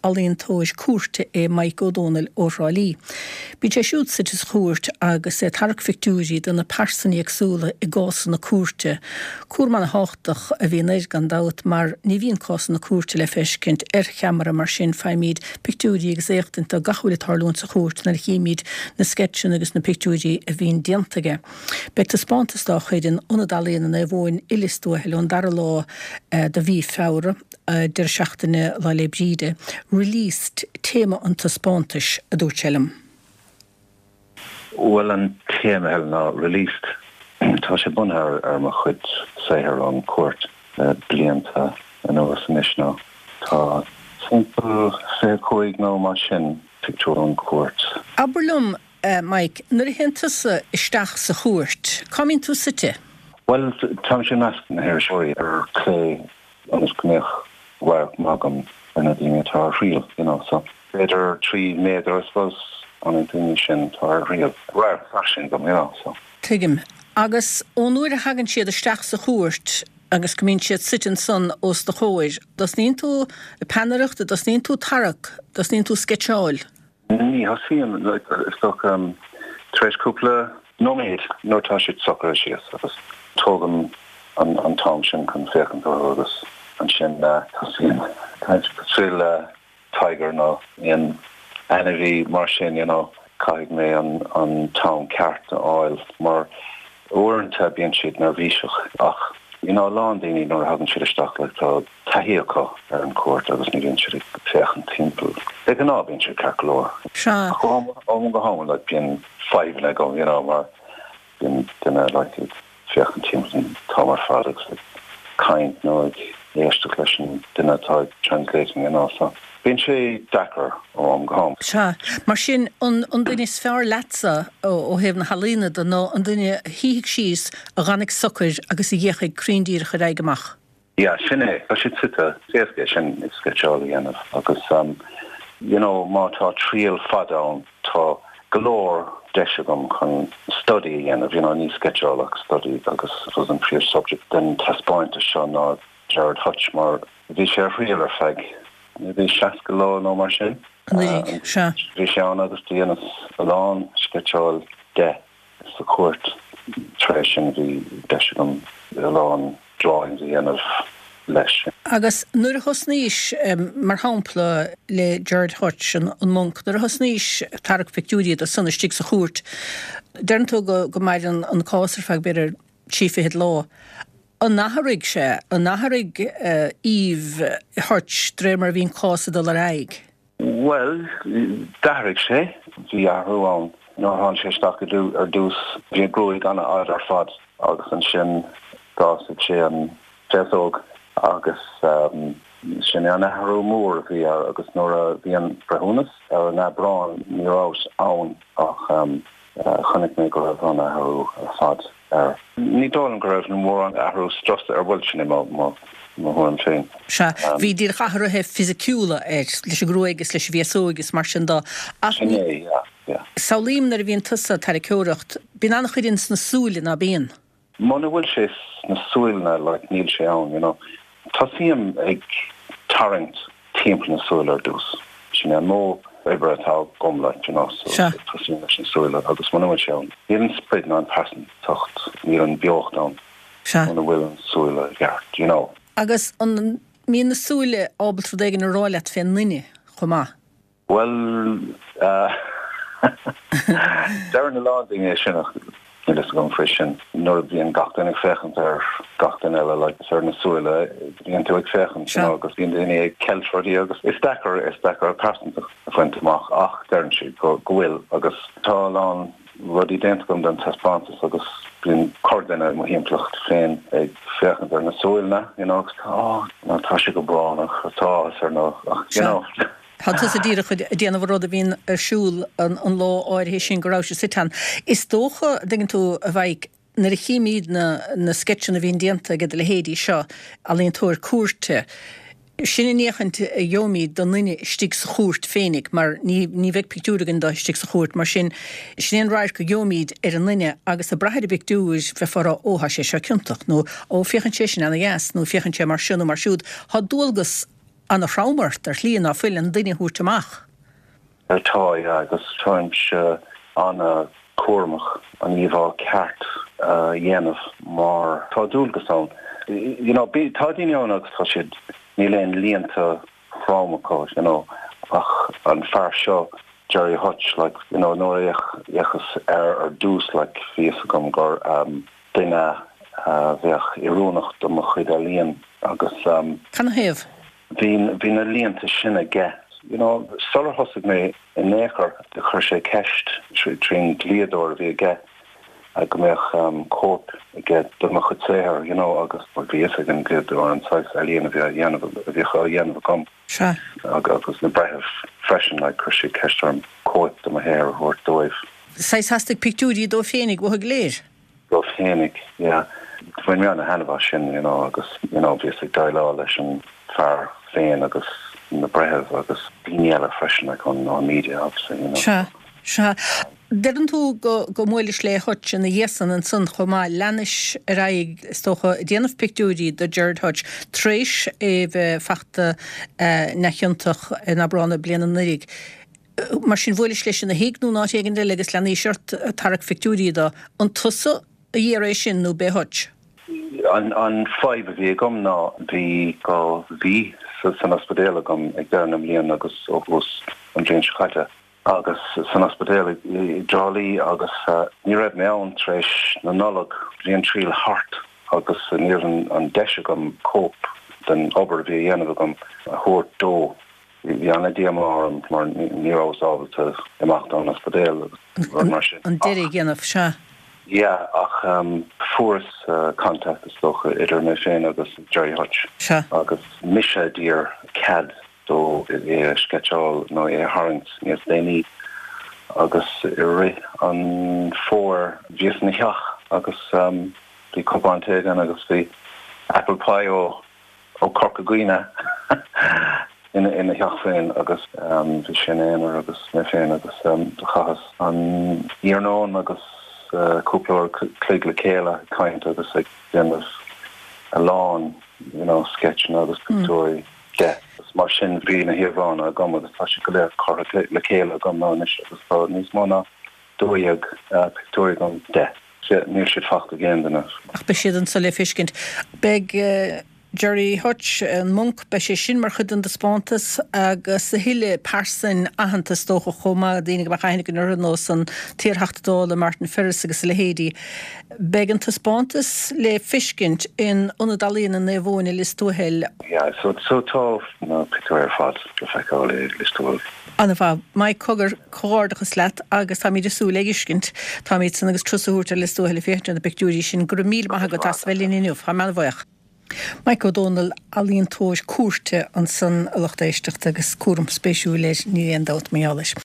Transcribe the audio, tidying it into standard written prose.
ealaíontóir cúirte é Mike Ó Dónaill ó Thrá Lí. Bíonn sé siúd suite sa chúirt agus é ag tarrac phictiúirí de na pearsana éagsúla i gcásanna cúirte. Cúram ana-thábhachtach a bhíonn air gan dabht mar ní bhíonn cásanna cúirte le feiscint ar cheamara mar sin faighimid pictiúirí agus éachtaint de gach a bhfuil ag tarlúint sa chúirt nuair a chímid na sceitseanna agus na pictiúirí a bhíonn déanta aige. Beidh taispeántas dá chuid in Ionad Ealaíona Naomh Eoin i Lios Tuathail ón dara lá de mhí Feabhra, deireadh seachtaine Lá 'le Bríde. Released téama an taispeántais, a dúirt sé liom. Bhuel an téama Helen ná Released. Tá sé bunaithe ar mo chuid saothair ón chúirt le blianta anuas anois nó tá timpeall 25 nó mar sin pictiúr ón chúirt. Abair liom, Mike, nuair a théann tusa isteach sa chúirt, cá mbíonn tú suite? Bhuel, táimse i measc na hiriseoirí ar clé ionas go mbeadh radharc maith agam ar na daoine atá ar thriail, you know, so b'fhéidir 3 méadar, I suppose, ó na daoine sin atá ar thriail. Radharc fairsing agam, you know, so. Tuigim. Agus ón uair a thagann siad isteach sa chúirt agus go mbíonn siad suite ansan os do chomhair, dtosnaíonn tú ag peannaireacht, a dtosnaíonn tú ag tarrac, dtosnaíonn tú ag sceitseáil? Ní thosaím, is dócha, tar éis cúpla nóiméad nuair atá siad socraithe síos agus tógaim an t-am sin chun féachaint orthu agus ansin tosaím cosúil le tiger nó aon ainmhí mar sin, you know, caithfidh mé an t-am ceart a fháil mar uaireanta bíonn siad neirbhíseach ach, you know, a lán daoine nuair a thagann siad isteach like tá taithí acu ar an chúirt agus ní bhíonn siad ag féachaint timpeall. De ghnáth bíonn siad ceart go leor. Sea. Ach ó am go ham like bíonn fadhbanna agam you know mar bíonn duine like ag féachaint timpeall an t-am ar fad agus ag caint nó ag éisteacht leis an duine atá ag translating you know so bíonn sé deacair ó am go ham. Sea. Mar sin an an duine is fearr leatsa ó thaobh na healaíona de ná an duine a shuífidh síos, a dh'fhanfaidh socair agus a dh'fhéachfaidh cruinn díreach ar aghaidh amach. Yeah, sin é. Tá siad suite. Is éasca é sin sceitseáil a dhéanamh agus you know má tá triail fada ann tá go leor deis agam chun study a dhéanamh, you know ní sceitseáil ach study agus I suppose an príomh subject den taispeántas seo ná Gerard Hutch mar bhí sé ar thriail ar feadh maybe 60 lá nó mar sin. Anuraidh, sea. Bhí sé ann agus do dheineas a lán sceitseáil de. Sa chúirt tar éis sin bhí deis agam a lán drawings a dhéanamh leis. Agus nuair a thosnaís, mar shampla le Gerard Hutch, an Monk, nuair a thosnaís ag tarrac pictiúirí de san istigh sa chúirt, deireann tú go maireann an cás ar feadh b'fhéidir trí fichid lá. An athraigh sé, an athraigh aoibh Hutch de réir mar a bhí an cás ag dul ar aghaidh? Bhuel, d'athraigh sé. Bhí athrú ann. Nuair a tháinig sé isteach ar dtús, bhí a ghruaig an-fhada ar fad agus ansin d'fhásaigh sé an féasóg agus sin é an athrú mór a bhí air agus nuair a bhí an breithiúnas ar an Aibreán ní rabhas ann ach chonaic mé go raibh an athrú ar fad air. Ní dóigh liom go raibh mórán athrú strus air, bhuel sin é mo thuairim féin. Sea, bhí díreach athruithe fisiciúla air, leis an ngruaig is leis an bhféasóig is mar sin de. Ach Sin é, yeah, yeah. samhlaím nuair a bhíonn tusa ag tarraiceoireacht, bíonn an-chuid ins na súile, ná bíonn? Muna bhfuil sé sna súile, like, níl sé ann, you know. Tosaím ag tarraingt timpeall na súile ar dtús. Sin é an modh oibre atá agam, like, you know, so Sea. tosaím leis na súile agus muna bhfuil sé ann, níl an sprid ná an pearsantacht, níl an beocht ann Sea. muna bhfuil an súile i gceart, you know. Agus an mbíonn na súile ábalta rud éigin a rá leat fén nduine chomh maith? Bhuel, deireann a lán daoine é sin ach níl fhios agam faoi sin. Nuair a bhíonn gach duine ag féachaint ar gach duine eile, like, is ar na súile a bhíonn tú ag féachaint, you know, agus bíonn daoine ag ceilt rudaí agus is deacair, is deacair pearsantacht a bhaint amach ach deireann siad go, go bhfuil agus tá a lán rudaí déanta agam don taispeántas agus bíonn corrdhuine i mo thimpeallacht féin ag féachaint ar na súile, you know, agus tá, oh, tá sé go brónach, tá áthas air nó, ach, you know. Tá tusa díreach ag déanamh an rud a bhíonn ar siúl an lá áirithe sin go raibh sé suite ann. Is dócha, an dtuigeann tú, a Mhaidhc, nuair a chímíd na na sceitseanna a bhíonn déanta ag do leithéidí seo, ealaíontóir cúirte, sin an fhéachaint a gheobhaimíd don nduine istigh sa chúirt féinig mar ní ní bheidh pictiúr againn de istigh sa chúirt mar sin, sin é an radharc a gheobhaimíd ar an nduine agus ag brath ar an bpictiúr bheifeá ag rá ó tá sé seo ciontach nó ó féachann sé sin ana dheas nó féachann sé mar seo nó mar siúd. Tá dualgas. ana-throm ort ar shlí ná fuil an duine a thabhairt amach. Tá, yeah, agus táimse ana-chúramach an íomhá ceart a dhéanamh mar tá dualgas ann. You know, tá daoine ann agus tá siad, níl aon líonta throm acu, you know, ach an fear seo, Gerry Hutch, like, you know, nuair a fhéachas air ar dtús, like, bhí fhios agam gur duine a bheadh oiriúnach do mo chuid ealaíon agus. Canathaobh? Bhí, bhí na líonta sin aige, you know, sular thosaigh mé in aon chor, chuir sé ceist trín dlíodóir a bhí aige go mbeadh cóip aige de mo chuid saothair, you know, agus bhí fhios ag an dlíodóir an saghas ealaíon a bhí á dhéanamh, a bhíodh á dhéanamh agam. Sea. Agus na breithimh freisin, like, chuir siad ceist orm cóip de mo shaothar a thabhairt dóibh. Saghas theastaigh pictiúirí dó féinig uathu go léir. Dó féinig, yeah. Bhain mé ana-thaitneamh as sin, you know, agus, you know, bhíos ag déileáil leis an fear féin agus na breithimh agus daoine eile freisin, like, ón, ón media, obviously, you know. Sea, sea. Deireann tú go, go mbuailis le Hutch ina dhiaidh san ansan chomh maith. Leanais ar aghaidh, is dócha, ag déanamh pictiúirí do Gerard Hutch tar éis é bheith fachta neamhchiontach in Aibreán na bliana anuraidh. Mar sin, bhuailis leis ina thigh nó in áit éigin eile agus leanaís ort ag tarrac phictiúirí dó. An tusa a d'iarr é sin nó b'é Hutch? An fadhb a bhí agam ná bhí 2 mhí san ospidéal agam ag deireadh na mbliana agus ó thús an bhliain seo caite agus san ospidéal i dTrá Lí agus ní raibh mé ann tar éis na Nollag. Bhí an triail thart agus ní raibh an deis agam cóip den obair a bhí a dhéanamh agam a thabhairt dó. Bhí ana-dhíomá orm mar ní rabhas ábalta imeacht ón ospidéal agus rud mar sin. An deireadh a dhéanamh, sea. Yeah, ach fuaireas contact is dócha idir mé féin agus Gerry Hutch. Sea. Agus mise a d'iarr cead dó é a sceitseáil nó é a tharraingt níos déanaí agus i rith an fómhair bhíos ina theach agus bhí cupán tae againn agus bhí apple pie ó ó Corca Dhuibhne ina theach féin agus bhí sé ina aonar agus mé féin agus do chaitheas an iarnóin agus cúpla uair a chloig le chéile ag caint agus ag déanamh a lán you know sceitseanna agus pictiúirí de. Agus mar sin bhí na híomhánna agam agus tá siad go léir curtha le chéile agam anois agus tá níos mó ná 12 pictiúirí agam de. Níl siad fachta ag aon duine. Ach beidh siad anso le feiscint. Beidh Gerry Hutch, an Monk, beidh sé sin mar chuid den dtaispeántas agus a thuilleadh pearsain aitheanta is dócha chomh maith, daoine go mbeadh aithne againn orthu, nós an t-iarTheachta Dála Martin Ferris agus a leithéidí. Beidh an taispeántas le feiscint in Ionad Ealaíona Naomh Eoin i Lios Tuathail. Yeah, so so tá na pictiúirí ar fad le feiceáil i Lios Tuathail. Ana-mhaith. Mike, cogar, comhghairdeachas leat agus táimid ag súil le fheiscint. Táimid san agus turas a thabhairt ar Lios Tuathail ag féachaint ar na pictiúirí sin. Go raibh míle maith agat as bheith linn inniu. Táim ana-bhuíoch. Mike Ó Dónaill, ealaíontóir cúirte ansan a lucht éisteachta agus cúram spéisiúil air, níl aon dabht mar gheall air.